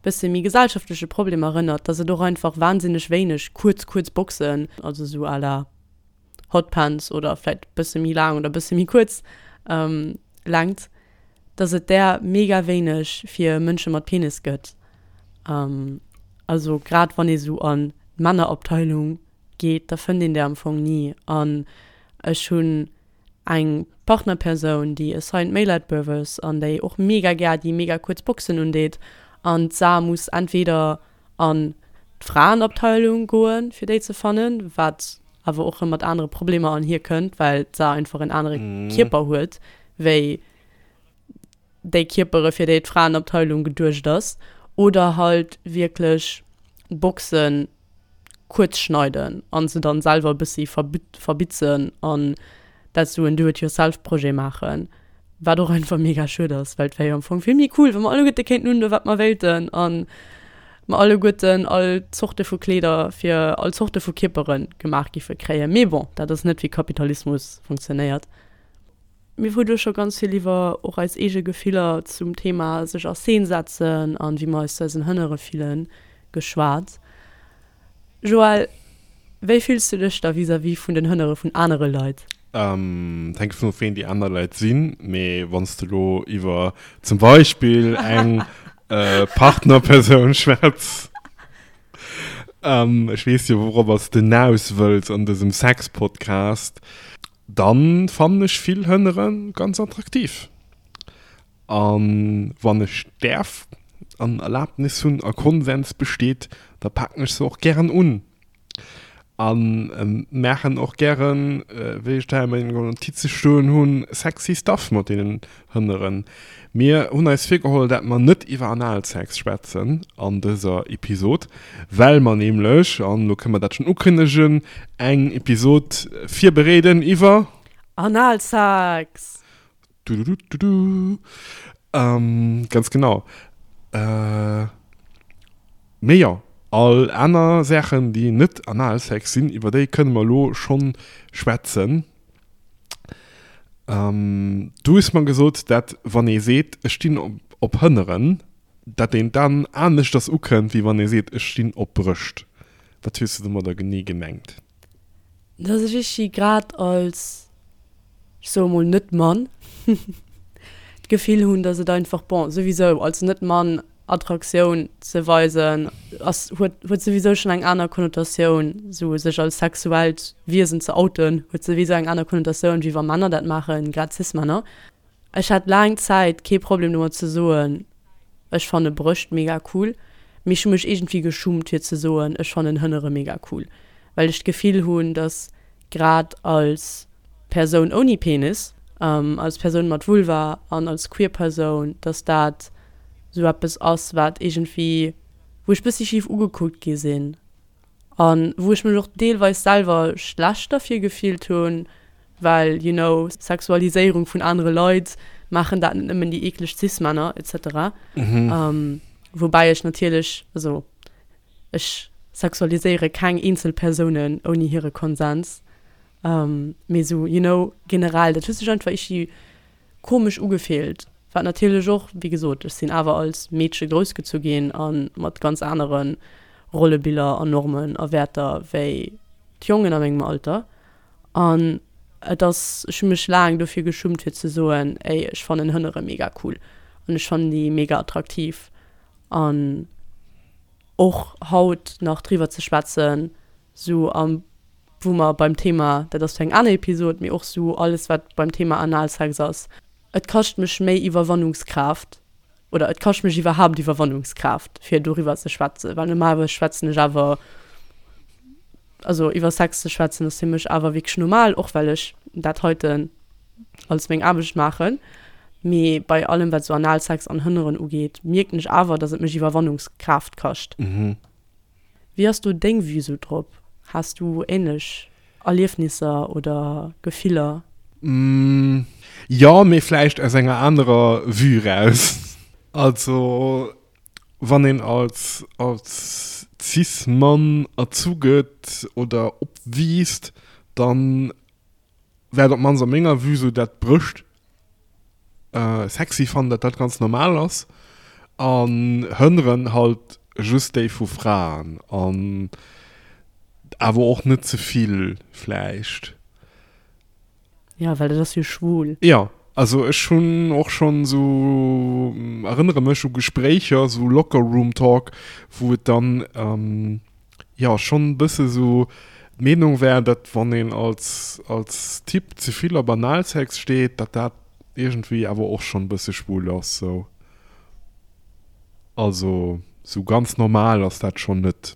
bësse méi gesellschaftleche Problem erënnert, dass et och einfach wahnsinneg wéineg kuerz, kuerz Boxen, also esou à la Hotpants oder vläit bësse méi laang oder bësse méi kuerz Längt, dass et där mega wéineg fir Mënsche mat Penis gëtt. Also grad wann ee sou an d'Männerabteilung geet, da fënnt een där am Fong ni. An ech hunn eng Partnerpersoun, déi assigned male at birth ass an déi och mega gär déi mega kuerz Boxen undeet an d'Sa muss entweder an d'Fraenabteilung goen, fir déi ze fannen, wat awer och rëm mat anere Problemer an hir kënnt, well d'Sa einfach en anere Kierper huet wéi déi Kierpere fir déi d'Fraenabteilung geduecht ass, oder halt wierklech Boxen kuerz schneiden an se dann selwer e bëssi verbitzen an dat sou en Do-it-yourself-Projet maachen. Wat och einfach mega schued ass, well et wär jo am Fong vill méi cool, wa mer alleguerte kéinten undoen, wat mer wéilten an mer alleguerten all Zorte vu Kleeder fir all Zorte vu Kierpere gemaach giffe kréien. Mee bon, dat ass net wéi Kapitalismus funktionéiert. Mir hu do scho ganz vill iwwer och eis eege Gefiller zum Thema sech a Scene setzen an wéi mer eis zu eisen Hënnere fillen geschwat. Joël, wéi fills du dech da vis-à-vis vun den Hënnere vun anere Leit? Et hänkt dovun of, ween déi aner Leit sinn. Mee wann s de elo iwwer zum Beispill eng Partnerpersoun schwätz. Ech weess jo wouropper s de naus wëlls an dësem Sex-Podcast. Dann fannen ech vill Hënnere ganz attraktiv. An wann ech däerf an Erlaabnis hunn a Konsens besteet, da paken ech se och gären un. An maachen och gären, wéi ech dat a mengen Notize stoen hunn, sexy Stuff mat deenen Hënneren. Mir hunn eis virgeholl, dat mer net iwwer Analsex schwätzen an dëser Episod, well mer nämlech, an elo kënne mer dat schonn ukënnegen, eng Episod virbereeden iwwer. Analsex! Dudududu. Ganz genau. Mee jo, all aner Saachen, déi net Analsex sinn, iwwer déi kënne mer elo schonn schwätzen. Du hues mer gesot, dat wann ee seet, ech stinn op Hënneren, dat een dann aneschters ukënnt, wéi wann ee seet, ech stinn op Brëscht. Wat hues de domadder genee gemengt? Dass ech ichi grad als, ech soe mol, Net-Mann d'Gefill hunn, dass et einfach, bon, souwisou als Net-Mann Attraktioun ze weisen ass, huet, huet souwisou schonn eng aner Konnotatioun, sou sech als sexuellt Wiesen ze outen, huet souwisou eng aner Konnotatioun, wéi wa Männer dat maachen, grad Cis-Männer. Ech hat laang Zäit kee Problem domat ze soen, ech fanne Brëscht mega cool, mee ech hu mech iergendwéi geschummt fir ze soen, ech fannen Hënnere mega cool, well ech d'Gefill hunn, dass grad als Persoun ouni Penis, als Persoun mat Vulva an als queer Persoun, dass dat sou eppes ass, wat iergendwéi, wou ech bëssi schif ugekuckt gi sinn. An wou ech mech och deelweis selwer schlecht derfir gefillt hunn, well, you know, Sexualiséierung vun anere Leit, maachen dat net nëmmen déi eekleg Cis-Männer, et cetera. Woubäi ech natierlech, also ech sexualiséiere keng eenzel Persounen ouni hire Konsens, mee esou, you know, generell, dat huet sech einfach iergendwéi komesch ugefillt, wat natierlech och, wéi gesot, ech sinn awer als Meedche groussgezu ginn a mat ganz anere Rollebiller an Normen a Wäerter wéi d'Jongen a mengem Alter. An et ass, ech hu mech laang dofir geschummt fir ze soen, ey, ech fannen Hënnere mega cool an ech fannen déi mega attraktiv. An och haut nach driwwer ze schwätzen, sou am wou mer beim Thema, dat ass fir eng aner Episod, mee och sou alles wat beim Thema Analsex ass, et kascht mech méi Iwwerwannungskraaft oder et kascht mech iwwerhaapt Iwwerwannungskraaft fir doriwwer ze schwätzen, well normalerweis schwätzen ech awer, also iwwer Sex ze schwätzen ass fir mech awer wierklech normal, och well ech dat heiten als meng Aarbecht maachen, mee bei allem wat sou Analsex an Hënneren ugeet, mierken ech awer, datt et mech Iwwerwannungskraaft kascht. Wéi ass do deng Vue sou drop? Has du ähnlech Erliefnisser oder Gefiller? Jo, mee vläicht aus enger anerer Vue raus. Also wann een als als Cis-Mann erzu gëtt oder opwiisst, dann war et op d'mannst a menger Vue sou, dat d'Brëscht sexy fannen, dat dat ganz normal ass an Hënneren halt just déi vu Fraen an awer och net ze vill vläicht. Ja, well dat ass jo schwul. Ja, also ech hunn och schonn sou, erënnere mech u Gespréicher, sou Locker Room Talk, wou et dann jo schonn e bësse sou d'Meenung war, datt wann een als als Typ ze vill op Analsex steet, datt dat iergendwéi awer och schonn e bësse schwul ass sou. Also sou ganz normal ass dat schonn net.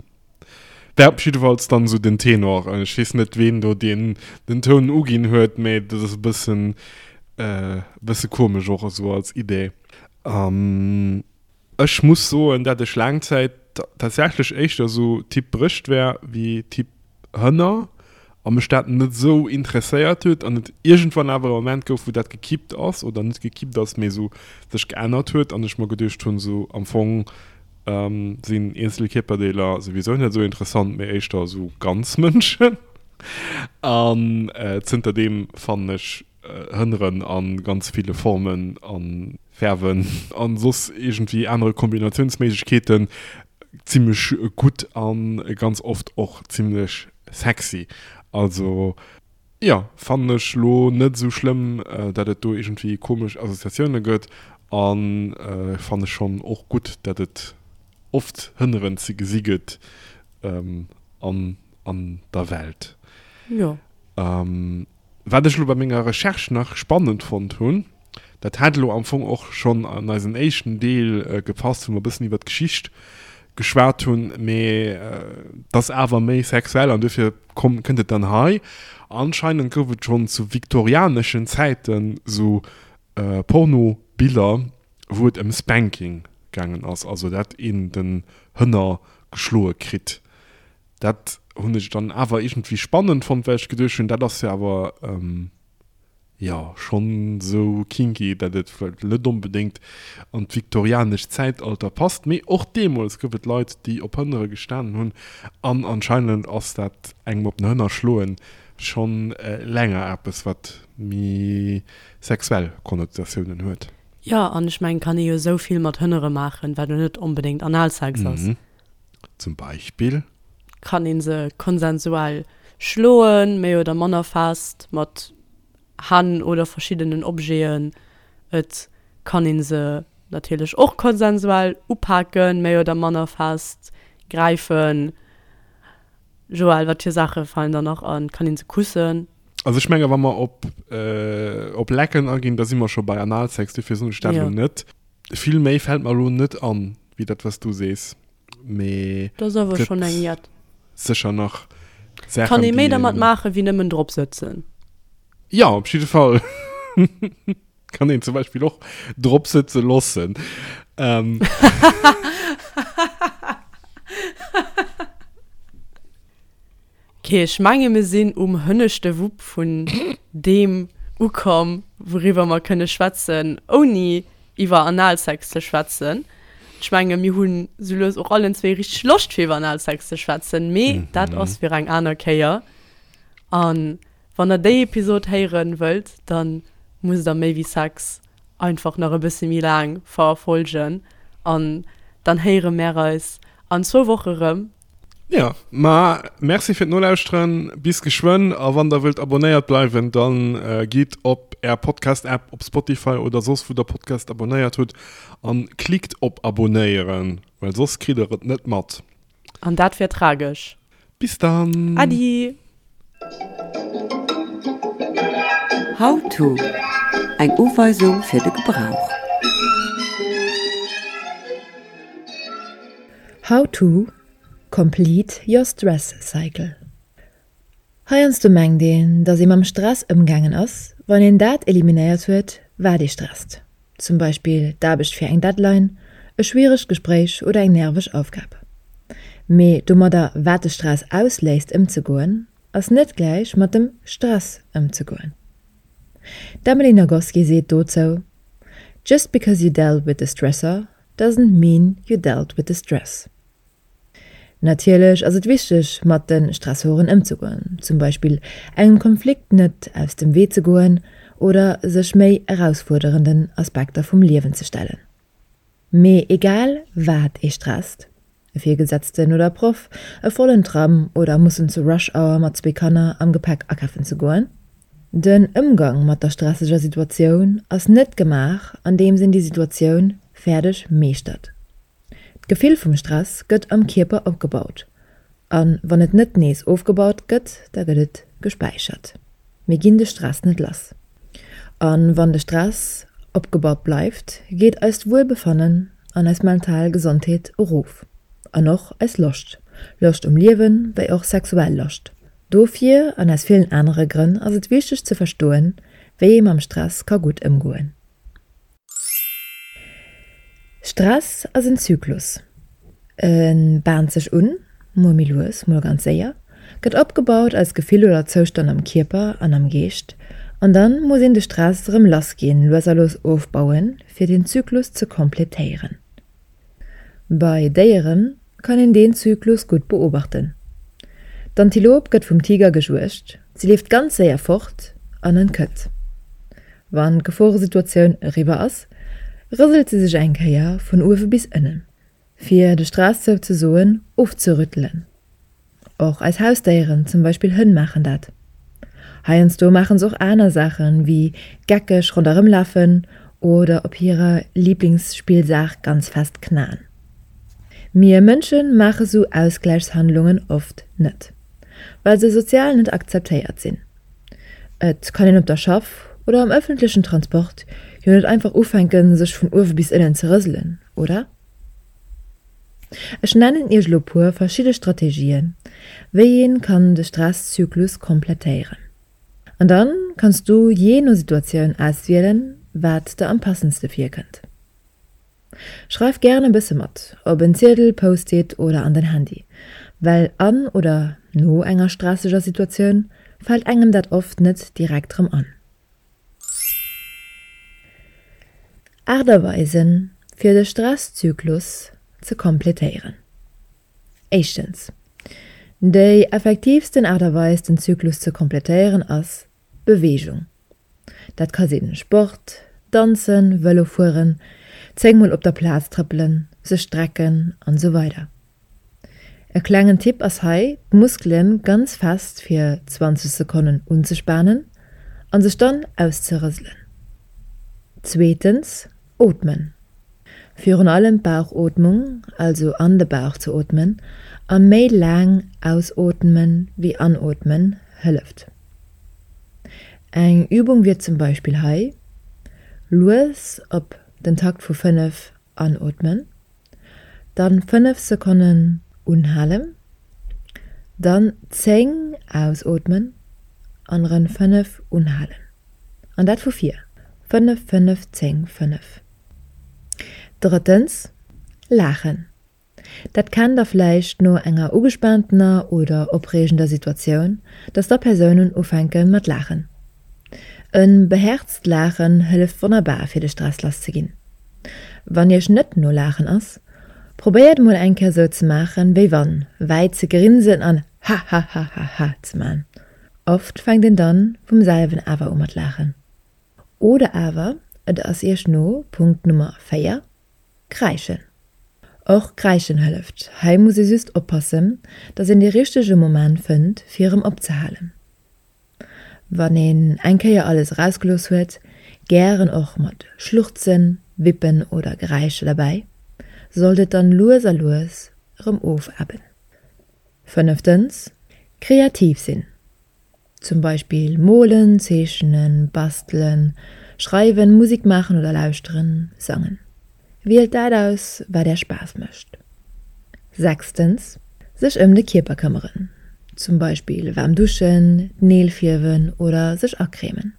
War op jiddefalls dann sou den Tenor. Ech weess net ween do deen den Toun uginn huet, mä dat ass e bëssen e bësse komesch och esou als Idee. Ech muss soen, dat ech laang Zäit tatsächlech éischter sou Typ Brëscht war wéi Typ Hënner a mech dat net sou interesséiert huet an et iergendwann awer e Moment gouf, wou dat gekippt ass, oder net gekippt ass, mee sou sech geännert huet an ech mer geduecht hunn, sou am Fong sinn eenzel Kierperdeeler souwisou net sou interessant, mee éischter sou ganz Mënschen. An zënterdeem fannen ech Hënneren a ganz ville Formen a Fäerwen a soss iergendwéi anere Kombinatiounsméiglechkeeten zimmlech gutt a ganz oft och zimmlech sexy. Also jo, fannen ech lo net esou schlëmm, dat et do iergendwéi komesch Associatioune gëtt a fanne schonn och gutt, dat et oft Hënneren ze gesi gëtt. An an der Welt. Jo. Wat ech elo bei menger Recherche nach spannend fonnt hunn, dat hätt elo am Fong och schonn an eisen éischten Deel gepasst, wou mer e bëssen iwwer d'Geschicht geschwat hunn, mee et ass awer méi sexuell an duerfir komm kënnt et dann hei. Anscheinend gouf et schonn zu viktorianeschen Zäiten esou Pornobiller, wou et ëm Spanking gaangen ass, also dat een den Hënner geschloe kritt. Dat hunn ech dann awer iergendwéi spannend fonnt, well ech geduecht hunn, dat ass jo awer, jo, schonn esou kinky, dat et vläicht net onbedéngt an d'viktorianescht Zäitalter passt. Mee och deemools gouf et Leit, déi op Hënnere gestanen hunn an anscheinend ass dat engem op den Hënner schloen schonn länger eppes, wat méi sexuell Konnotatiounen huet. Jo, an ech mengen, kann ee jo esou vill mat Hënnere maachen, wat elo net onbedéngt Analsex ass. Zum Beispill? Kann ee se konsensuell schloen, méi oder manner fest, mat Hänn oder verschiddenen Objeten. Et kann ee se natierlech och konsensuell upaken, méi oder manner fest, gräifen. Joël, wat fir Saache falen der nach an? Kann een se kussen? Also ech menge wa mer op, op Lecken aginn, da si mer scho bei Analsex, dofir soen ech dat elo net. Vill méi fält mer elo net an, wéi dat wat s du sees, mee Dat ass awer schonn eng jett. Sécher nach Saachen, Kann ee méi dermat maachen, wéi nëmmen drop sëtzen. Jo, op jidde Fall. Kann een zum Beispill och drop sëtze lossen. Ähm. Ok, ech menge mir sinn um hënneschte Wupp vun deem ukomm, wouriwwer mer kënne schwätzen, ouni iwwer Analsex ze schwätzen. Ech menge mir hunn sou lues och allen zwee richteg Loscht fir iwwer Analsex ze schwätzen, mee dat ass fir eng aner Kéier. An Wann der déi Episod héieren wëllt, dann musst der méi wéi Sex einfach nach e bësse méi laang verfolgen an dann héiere mär eis an zwou Woche rëm. Jo, ma merci fir d'Nolauschteren, bis geschwënn a wann der wëllt abonnéiert bleiwen, dann gitt op är Podcast App, op Spotify oder soss wou der Podcast abonnéiert hutt an klickt op abonéieren, well soss kritt der et net mat. An dat wär tragesch. Bis dann! Adi! How to, Eng Uweisung fir de Gebrauch. How to complete your stress cycle. Heiansdo mengt een, dass ee mam Stress ëmgaangen ass, wann een dat eliminéiert huet, wat ee stresst. Zum Beispill d'Aarbecht fir eng Deadline, e schwieregt Gespréich oder eng nerveg Aufgab. Mee domadder, wat de Stress ausléist, ëmzegoen, ass net gläich mat dem Stress ëmzegoen. D'Emily Nagoski seet dozou, Just because you dealt with the stressor doesn't mean you dealt with the stress. Natierlech ass et wichteg, mat de Stressoren ëmzegoen, zum Beispill engem Konflikt net aus dem Wee ze goen oder sech méi erausfuerderenden Aspekter vum Liewen ze stellen. Mee egal wat ee stresst, e Virgesetzten oder Proff, e vollen Tram oder mussen zur Rush Hour mat zwee Kanner am Gepäck akafen ze goen, den Ëmgang mat der stresseger Situatioun ass net gemaach andeems een déi Situatioun fäerdeg meeschtert. D'Gefill vum Stress gëtt am Kierper opgebaut a wann et net nees ofgebaut gëtt, da gëtt et gespäichert. Mir ginn de Stress net lass. A wann de Stress opgebaut bleift, geet eist Wuelbefannen an eis mental Gesondheet erof an och eis Loscht, Loscht um Liewen, wéi och sexuell Loscht. Dofir an aus villen anere Grënn ass et wichteg ze verstoen, wéi ee mam Stress ka gutt ëmgoen. Stress ass en Zyklus. E baant sech un, mol méi lues, mol ganz séier, gëtt opgebaut als Gefill oder Zoustand am Kierper an am Geescht, an dann muss een de Stress erëm lass ginn, lues a lues ofbauen, fir den Zyklus ze kompletéieren. Bei Déiere kann een deen Zyklus gutt beobachten. D'Antilop gëtt vum Tiger gejuegt, si leeft ganz séier fort an entkënnt. Wann d'Geforesituatioun eriwwer ass, rëselt se sech eng Kéier vun uewe bis ënnen, fir de Stress souzesoen ofzerüttelen. Och eis Hausdéieren, zum Beispill Hënn, maachen dat. Heiansdo maachen se och aner Saachen, wéi geckeg ronderëm lafen oder op hirer Liblingsspillsaach ganz fest knaen. Mir Mënsche maache sou Ausgläichshandlungen oft net, well se sozial net akzeptéiert sinn. Et kann een op der Schaff oder am ëffentlechen Transport jo net einfach ufänken, sech vun uewe bis ënnen ze rëselen, oder? Ech nennen iech elo puer verschidde Strategien, wéi een kann de Stresszyklus komplettéieren. An dann kanns du jee no Situatioun auswielen, wat der am passendste virkënnt. Schreif gären e bësse mat, op en Ziedel, Post-it oder an den Handy, well an oder no enger stresseger Situatioun fält engem dat oft net direkt rëm an. Aart a Weisen, fir de Stresszyklus ze kompletéieren. Éischtens, Déi effektiivsten Aart a Weis den Zyklus ze kompletéieren ass Beweegung. Dat ka sinn Sport, Danzen, Vëlo fueren, 10 mol op der Plaz trëppelen, sech strecken an esou weider. E klengen Tipp ass hei d'Muskelen ganz fest fir 20 Sekonnen unzespanen an sech dann auszerëselen. Zweetens, Ootmen. Virun allem d'Bauchootmung, also an de Bauch ze ootmen a méi laang ausootmen wéi anootmen, hëlleft. Eng Übung wier zum Beispill hei, lues op den Takt vu 5 anootmen, dann 5 Sekonnen unhalen, dann 10 ausootmen an erëm 5 unhalen. An dat vu vir, 5, 5, 10, 5. Drëttens, laachen. Dat kennt der vläicht no enger ugespaantener oder opreegender Situatioun, dass da Persounen ufänke mat laachen. E behäerzt Laachen hëlleft wonnerbar fir de Stress lass ze ginn. Wann iech net no laachen ass, probéiert mol eng Kéier sou ze maachen wéi wann, wäit ze grinsen an hahahahaha ze man. Oft fänkt een dann vum selwen awer u mat laachen. Oder awer et ass iech no Punkt Nummer 4, Kräischen. Och Kräischen hëlleft, hei muss ee just oppassen, dass een dee richtege Moment fënnt fir erëm opzehalen. Wann een eng Kéier alles erausgelooss huet, gären och mat Schluchzen, Wippen oder Geräischer derbäi, sollt et dann lues a lues erëm ofebben. Fënneftens, kreativ sinn. Zum Beispill molen, zeechnen, bastelen, schreiwen, Musik maachen oder lauschteren, sangen. Wielt dat aus, wat är Spaass mécht. Sechstens, sech ëm de Kierper këmmeren. Zum Beispill waarm duschen, d'Neel fierwen oder sech acremen.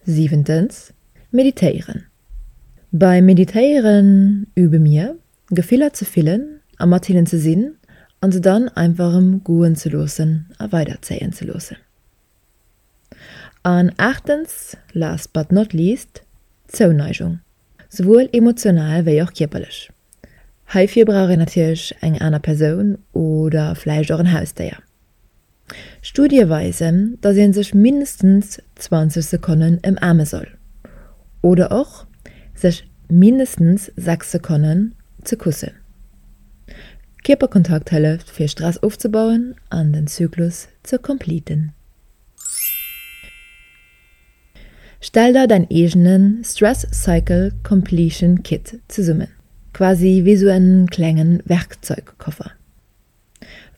Siwentens, meditéieren. Beim Meditéieren übe mir, Gefiller ze fillen a mat hinnen ze sinn an se dann einfach erëm goen ze loossen a weiderzéien ze loossen. An aachtens, last but not least, Zouneigung, souwuel emotional wéi och kierperlech. Heifir brauch een natierlech eng aner Persoun oder vläicht och en Hausdéier. Studie weisen, dass ee sech mindestens 20 Sekonnen ëmaarme soll oder och sech mindestens 6 Sekonnen ze kussen. Kierperkontakt hëlleft fir Stress ofzebauen an den Zyklus ze completen. Stell der däin eegene Stress Cycle Completion Kit zesummen, quasi wéi sou en klengen Werkzeugkoffer.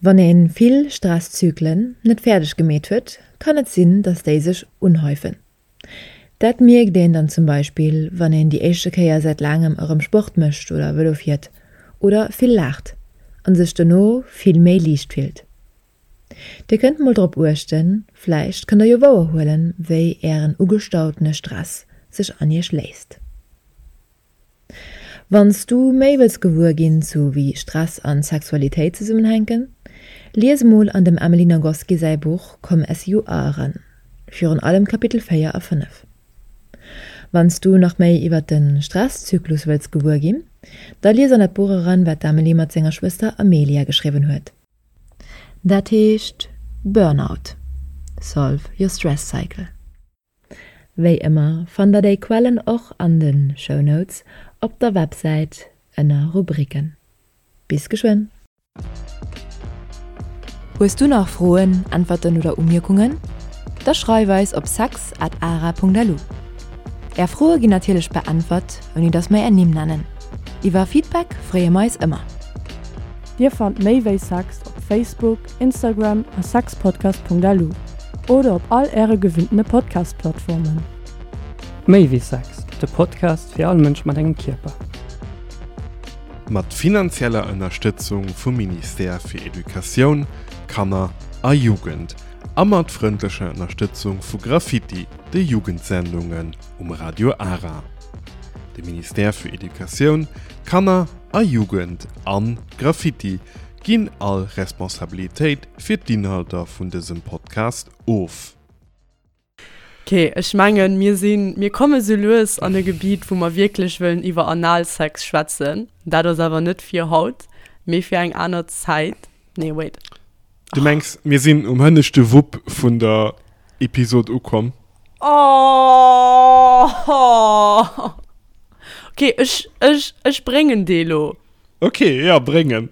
Wann een vill Stresszyklen net fäerdeg gemeet huet, kann et sinn, dass déi sech unhäufen. Dat mierkt een dann zum Beispill, wann een déi éischte Kéier säit laangem erëm Sport mécht oder Vëlo fiert oder vill laacht an sech dono vill méi liicht fillt. Dir kënnt mol drop uechten, vläicht kënnt der jo wouer huelen, wéi ären ugestautene Stress sech an iech léist. Wann s du méi wëlls gewuer ginn zu wéi Stress an Sexualitéit zesummenhänken, lies emol an dem Emily Nagoski säi Buch Come As You Are eran, virun allem Kapitel 4 a 5. Wann s du nach méi iwwert de Stresszyklus wëlls gewuer ginn, da lies an dat Buch eran, wat d'Emily mat senger Schwëster Amelia geschriwwen huet. Dat heescht Burnout, Solve your stress cycle. Wéi ëmmer fannt der déi Quellen och an de Show Notes op der Websäit ënner Rubriken. Bis geschwënn! Hues du nach Froen, Äntwerten oder Umierkungen? Da schreif eis op sex at ara.lu. Är Froe ginn natierlech beäntwert, ouni datt mer är Nimm nennen. Iwwer Feedback freeë mer eis ëmmer. Dir fannt Méi wéi Sex op Facebook, Instagram a sexpodcast.lu oder op all äre gewinntene Podcast-Plattformen. Méi wéi Sex, de Podcast fir all Mënsch mat engem Kierper. Mat finanzieller Ënnerstëtzung vum Ministère fir Educatioun, Kanner a Jugend a mat frëndlecher Ënnerstëtzung vu Graffiti, de Jugendsendungen um Radio Ara. De Ministère fir Educatioun, Kanner a Jugend an Graffiti ginn all Responsabilitéit fir d'Inhalter vun dësem Podcast of. Ok, ech mengen, mir sinn, mir komme sou lues an e Gebiet, wou mer wierklech wëllen iwwer Analsex schwätzen. Dat ass awer net fir haut, mee fir eng aner Zäit. Nee, wait. Du mengs, mir sinn um hënneschte Wupp vun der Episod ukomm? Oh! Ok, ech, ech, ech bréngen dee lo. Ok, ja, bréng en.